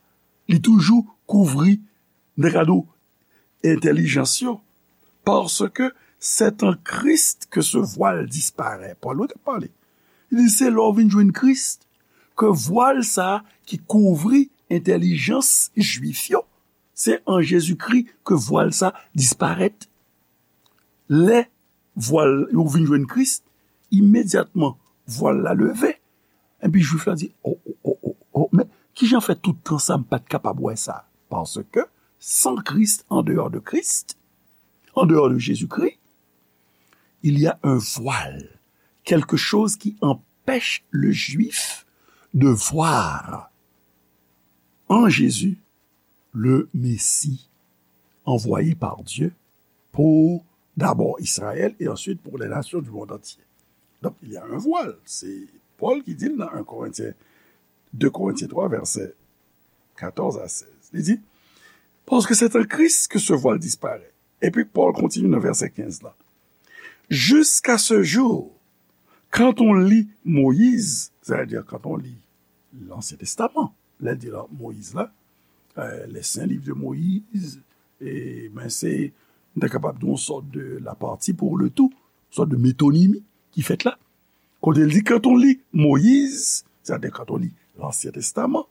li toujou kouvri, nan kado entèlijans yo. Parce que c'est en Christ que ce voile disparaît. Pòl wi k ap pale. Li di se lè w vin jwenn Kris ke vwal sa a ki kouvri entèlijans jwif yo, se an Jezikri ke vwal sa disparèt. Lè vwal yo vin jwenn Kris, imedyatman vwal la leve. Epi jwif la di, oh, oh, oh, oh, oh, men kijan fè tout tan sa m pa t kapab wè sa? Parce que sans Christ, en dehors de Christ, en dehors de Jésus-Christ, il y a un voile, quelque chose qui empêche le juif de voir en Jésus le Messie envoyé par Dieu pour d'abord Israël et ensuite pour les nations du monde entier. Donc, il y a un voile. C'est Paul qui dit dans un Corinthiens, deux Corinthiens trois, verset quatorze à seize. Il dit, parce que c'est en Christ que ce voile disparaît. Et puis Paul continue dans verset quinze là. Jusqu'à ce jour, quand on lit Moïse, c'est-à-dire quand on lit l'Ancien Testament, lè l di la Moyiz la, euh, les saints livres de Moïse, e, men se, nou ta kapab di yon sòt de la partie pour le tout, yon sòt de métonymie ki fèt la. Kote l di, quand on lit Moïse, c'est-à-dire quand on lit l'Ancien Testament,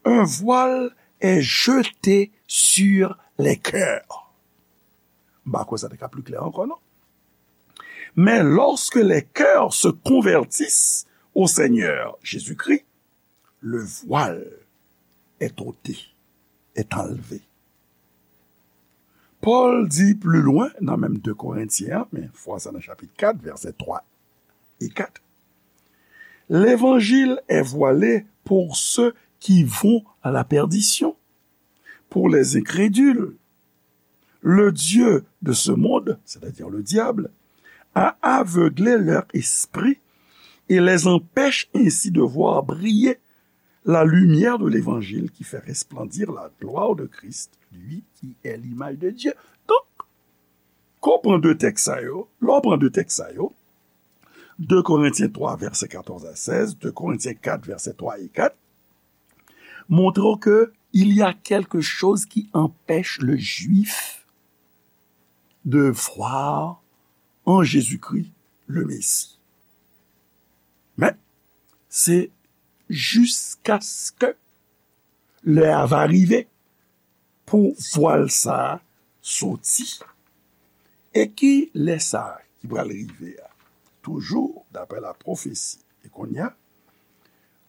un voile est jeté sur les cœurs. M pa kwè sa te ka pli klè ankò, non. Mais lorsque les cœurs se convertissent au Seigneur Jésus-Christ, le voile est ôté, est enlevé. Pòl di pli lwen nan menm de Korentyen an, men fwa sa nan chapit kat, vèsè twa e kat, l'évangile est voilé pour ceux qui vont à la perdition, pour les incrédules. Le Dieu de ce monde, c'est-à-dire le diable, a aveuglé leur esprit et les empêche ainsi de voir briller la lumière de l'évangile qui fait resplendir la gloire de Christ, lui qui est l'image de Dieu. Donk, kan w pran de tèks sa yo, lè w pran de tèks sa yo, de Korentyen twa, vèsè katòz a sèz, de Korentyen kat, vèsè twa e kat, montre w ke il y a quelque chose qui empêche le juif de voir en Jésus-Christ le Messie. Men, se jiskaske lè a va rive pou vwal sa a soti. E ki lè sa a ki pral rive a? Toujou, daprè la pwofesi. E kounye a,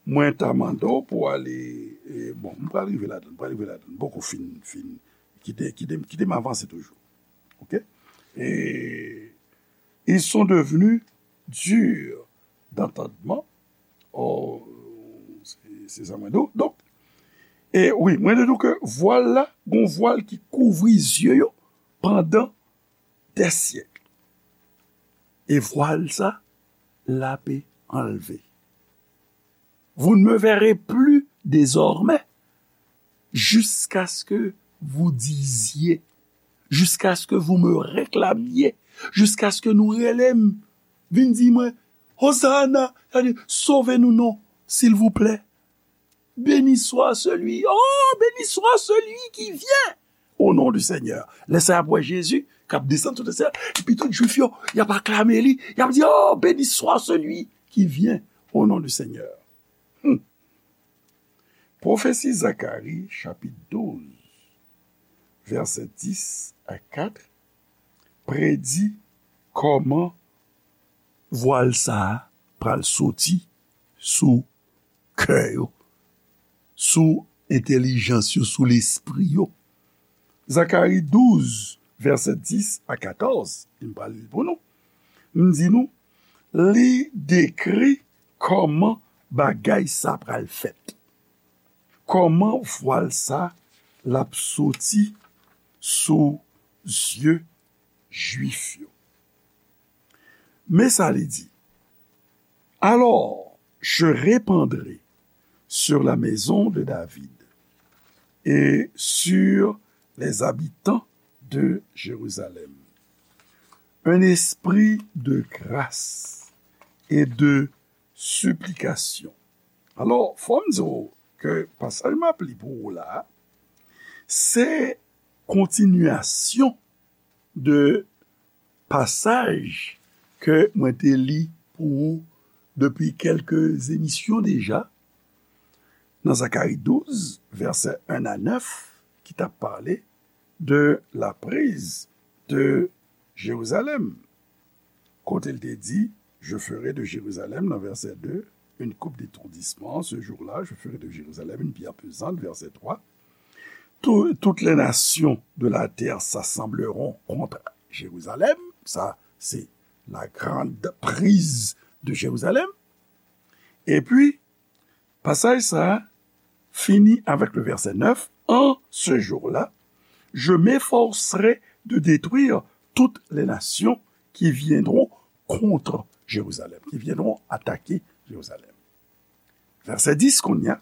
mwen ta mande w pou w ale, e, bon, m pral rive ladan, m pral rive ladan. M poko fin, fin, kite, kite, kite m avanse toujou. Oke? E, ils sont devenus durs d'entendement. Oh, se, se sa mwen di w. Donk, e wi, mwen te di w ke vwal la, gon vwal ki kouvri zye yo pandan des siècles. E vwal sa, l ape anlve. Vous ne me verrez plus désormais, jusqu'à ce que vous disiez, jusqu'à ce que vous me réclamiez, jusqu'à ce que nou rele m, vin di mwen, Hosanna, sa di, sove nou non, silvouplè. Béni soit celui, oh, béni soit celui qui vient au nom du Seigneur. Lè sa y ap wè Jezi k ap desann sou tè, epi tout Jwif yo, y ap aklame li, y ap di, oh, béni soit celui qui vient au nom du Seigneur. Hmm. Pwofesi Zakari, chapit douz, vèsè dis a kat, predi kòman vwal sa a pral soti sou kè yo, sou entèlijans yo, sou lespri yo. Zakari douz, vèsè dis a katòz, m pral li l pou nou. M di nou, li dekri kòman bagay sa pral fèt. Kòman vwal sa l ap soti sou zye Jwif yo? Men sa li di, alors je répandrai sur la maison de David et sur les habitants de Jérusalem un esprit de grâce et de supplication. Alò, fò m di w ke pasaj m ap li pou ou la, se kontinyasyon de pasaj ke mwen te li pou ou depi kèlke emisyon deja, nan Zakari douz, vèsè en a nèf, ki t ap pale de la prise de Jérusalem. Kote l te di, Je ferai de Jérusalem, nan vèsè de, une coupe d'étourdissement. Ce jour-là, je ferai de Jérusalem une pierre pesante, vèsè twa. Tout, toutes les nations de la terre s'assembleront contre Jérusalem. Sa, se la grande prise de Jérusalem. Epi, pasaj sa a fini avèk le vèsè nèf, En ce jour-là, je m'efforcerai de détruire toutes les nations qui viendront contre Jérusalem, qui viendront attaquer Jérusalem. Vèsè dis, kounye a,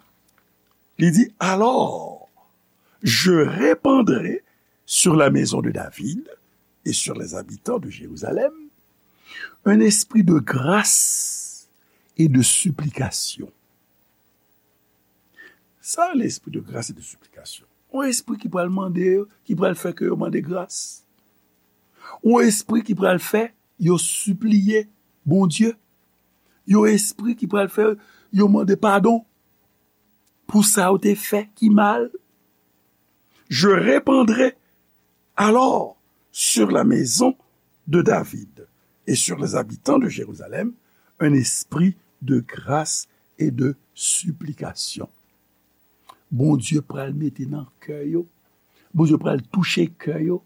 li di, Alors, je répandrai sur la maison de David et sur les habitants de Jérusalem un esprit de grâce et de supplication. Sa, l'esprit de grâce et de supplication. Yon espri ki pral mande yo, ki pral fè ke yo mande gras. Yon espri ki pral fè yo sipliye Bondye. Yon espri ki pral fè yo mande padon pou sa yo te fè ki mal. Je répandrai alors sur la maison de David et sur les habitants de Jérusalem un esprit de grâce et de supplication. Bondye pral mete nan kè yo. Bondye pral touche kè yo.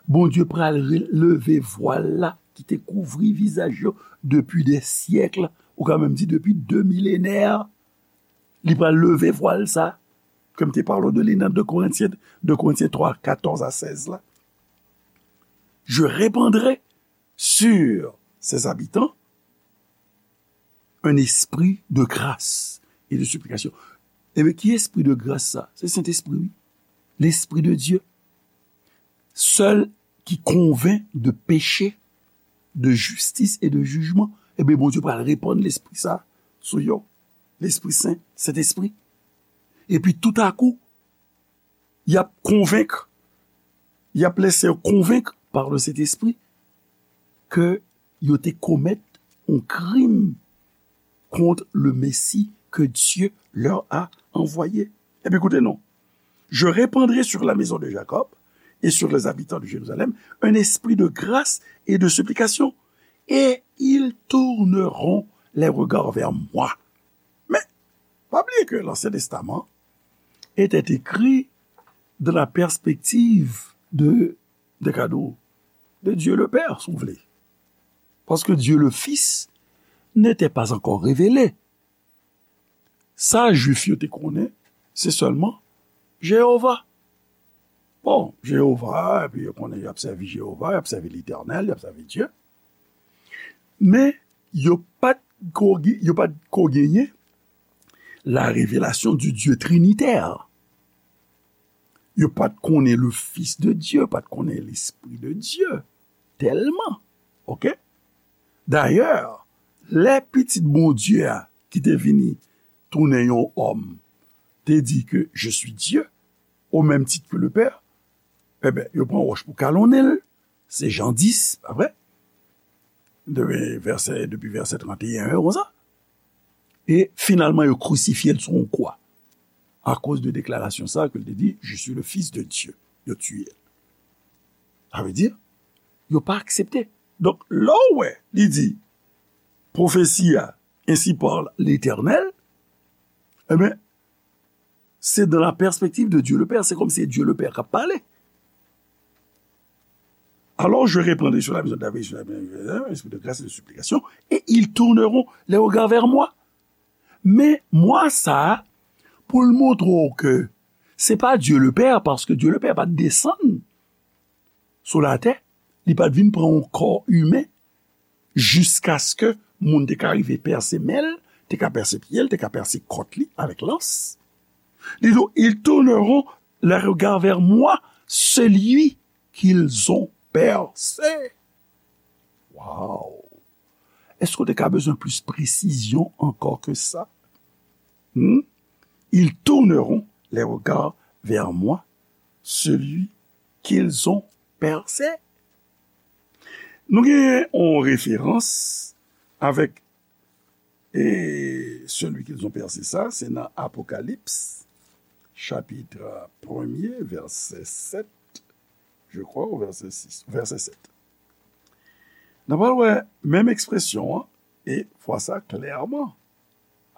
Bondye pral re- leve vwal la ki te kouvri vizaj yo depi de syèk, ou ka menm di depi de milenè. Li pral leve vwal sa, ke m te pale w de li nan de Korentyen, de Korentyen twa, katòz a sèz la. Je répandrai sur ses habitants un esprit de grâce et de supplication. Ebyen, ki espri de gras sa? Se Sentespri, wi. Lespri de Dye. Sèl ki konvenk de peche, de jistis e de jijman. Ebyen, Bondye pral repann lespri sa sou yo. Lespri Sen, Sentespri. Epi toutakou, y ap konvenk, y ap lese yo konvenk par le Sentespri ke yo te komèt yon krim kont le Messie que Dieu leur a envoyé. Epi koute non. Je répandrai sur la maison de Jacob et sur les habitants de Jérusalem un esprit de grâce et de supplication, et ils tourneront les regards vers moi. Men, pa bliye ke Lansyen Testaman était écrit dans la perspective de, de kado, de Dieu le Père, si vous voulez. Parce que Dieu le Fils n'était pas encore révélé. Sa Jwif yo te konnen, se sèlman Jewova. Bon, Jewova, epi yo konnen y ap sèvi Jewova, y ap sèvi Letènèl, y ap sèvi Dye. Men, yo pa t ko, yo pa t ko genyen la révélation du Dieu trinitaire. Yo pa t konnen le Fils de Dieu, yo pa t konnen Lespri de Dye. Tèlman. Oke? Dayè, lè Pitit Bondye a, ki te vini tounen yon òm, te di ke, Je suis Dieu, au même titre que le Père, enben, yo pran wòch pou kalonnen l. Se Jan dis, pa vre? De vèsè, depi vèsè trannteyen, konsa. E finalman, yo krisifye l sou yon kwa. Akoz de deklarasyon sa ke l te di, Je suis le Fils de Dieu. Yo tiye l. Sa vle di, yo pa aksepte. Donk, lè w wè, li di, pwofesi a, Ainsi parle l'Éternel, enben, c'est dans la perspective de Dieu le Père. C'est comme si Dieu le Père k ap pale. Alors je répandrai sur la maison de David, sur la maison de Jérusalem, un esprit de grâce et de supplication, et ils tourneront les regards vers moi. Men mwa sa a, pou l montre w ke se pa Dieu le Père, paske Dieu le Père pa t desann sou latè, li pa t vin pran yon kò imen, jiskaske moun te ka rive pèse men l, te ka pèse pye l, te ka pèse kòt li avèk lans. Li di, ils tourneront les regards vers moi, celui qu'ils ont percé. Wow! Èske w te ka bezwen plis presizyon ankò ke sa? Hmm? Ils tourneront les regards vers moi, celui qu'ils ont percé. Nou gen yon referans avèk e celui qu'ils ont percé sa, se nan Apokalips, chapit premye, vèsè sèt, je crois, ou vèsè sis, vèsè sèt. N a pral wè menm ekspresyon an, e fwa sa klèman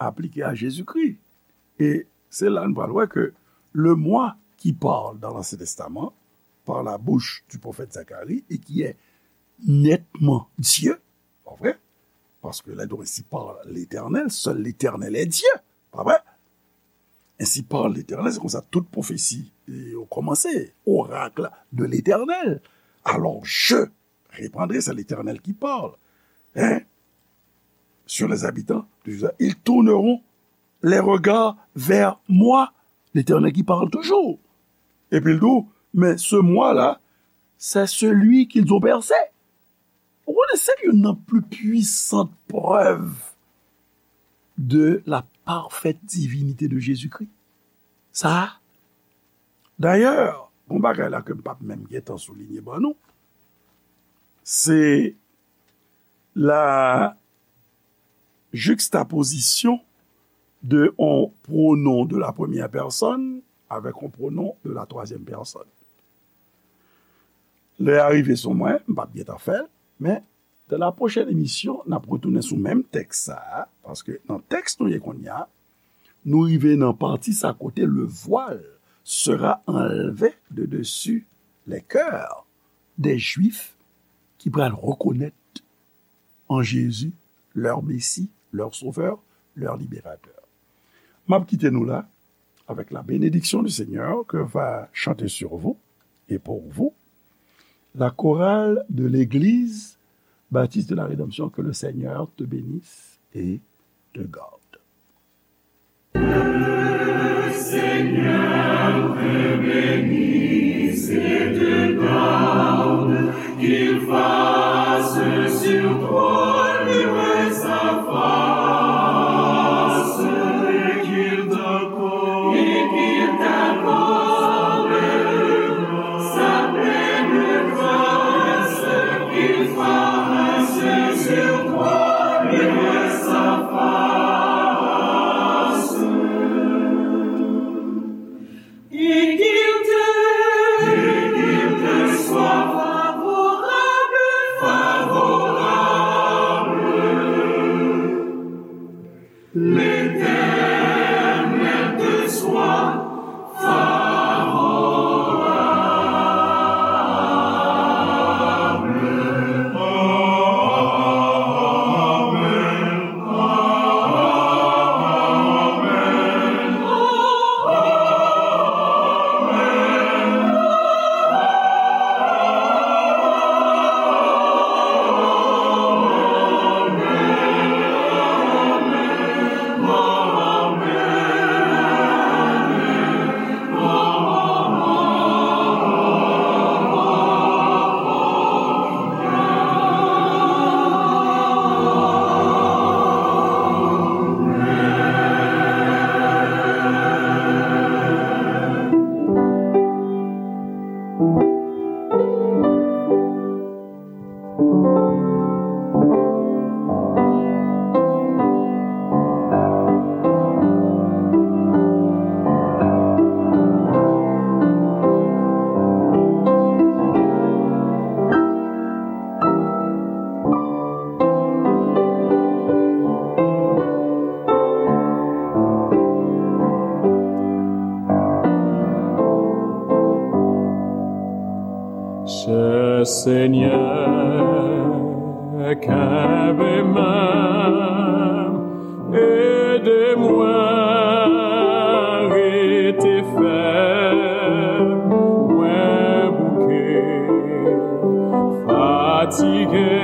aplike a Jezikri. E se la n pral wè ke le moi qui parle dans l'Ancien Testament par la bouche du prophète Zacharie et qui est nettement Dieu, pa vre? Paske lè nou ainsi parle l'Éternel, seul l'Éternel est Dieu, pa vre? Ainsi parle l'Éternel, se konsa tout pwofesi yo kòmanse, oracle de l'Éternel. Alors je reprendrai, c'est l'Éternel qui parle, hein, sur les habitants de Juda, ils tourneront les regards vers moi, l'Éternel qui parle toujours. Epi l di w, mais ce moi-là, c'est celui qu'ils ont percé. Ou konnen se youn nan pli pwisant prèv de la parfaite divinité de Jésus-Christ. Sa a, dayè, yon bagay la ke m p ap menm gentan soulinye ban nou, se la juxtaposition de yon pronom de la première personne avec yon pronom de la troisième personne. Lè a rive sou mwen, m p ap gentan fè l, men dans la prochaine émission, n ap retounen sou menm tèks sa a, paske nan tèks nou ye kounye a, nou rive nan pati sa kote le voile sera enlevé de dessus les cœurs des Juifs ki pral rekonèt en Jésus leur Messie, leur Sauveur, leur Libérateur. M ap kite nou la avec la bénédiction du Seigneur que va chanter sur vous et pour vous la chorale de l'église baptiste de la rédemption. Que le Seigneur te bénisse et te garde. Le Seigneur te bénisse et te garde, qu'il fasse sur toi luire sa face, et qu'il t'accorde, et qu'il t'accorde sa pleine grâce, qu'il fasse sur toi luire sa face. Et qu'il te, et qu'il te soit favorable, favorable. L'Éternel te soit favorable. Amen. Chè Senyè, kenbe men m, ede mwen rete fèm, mwen bouke, fatige.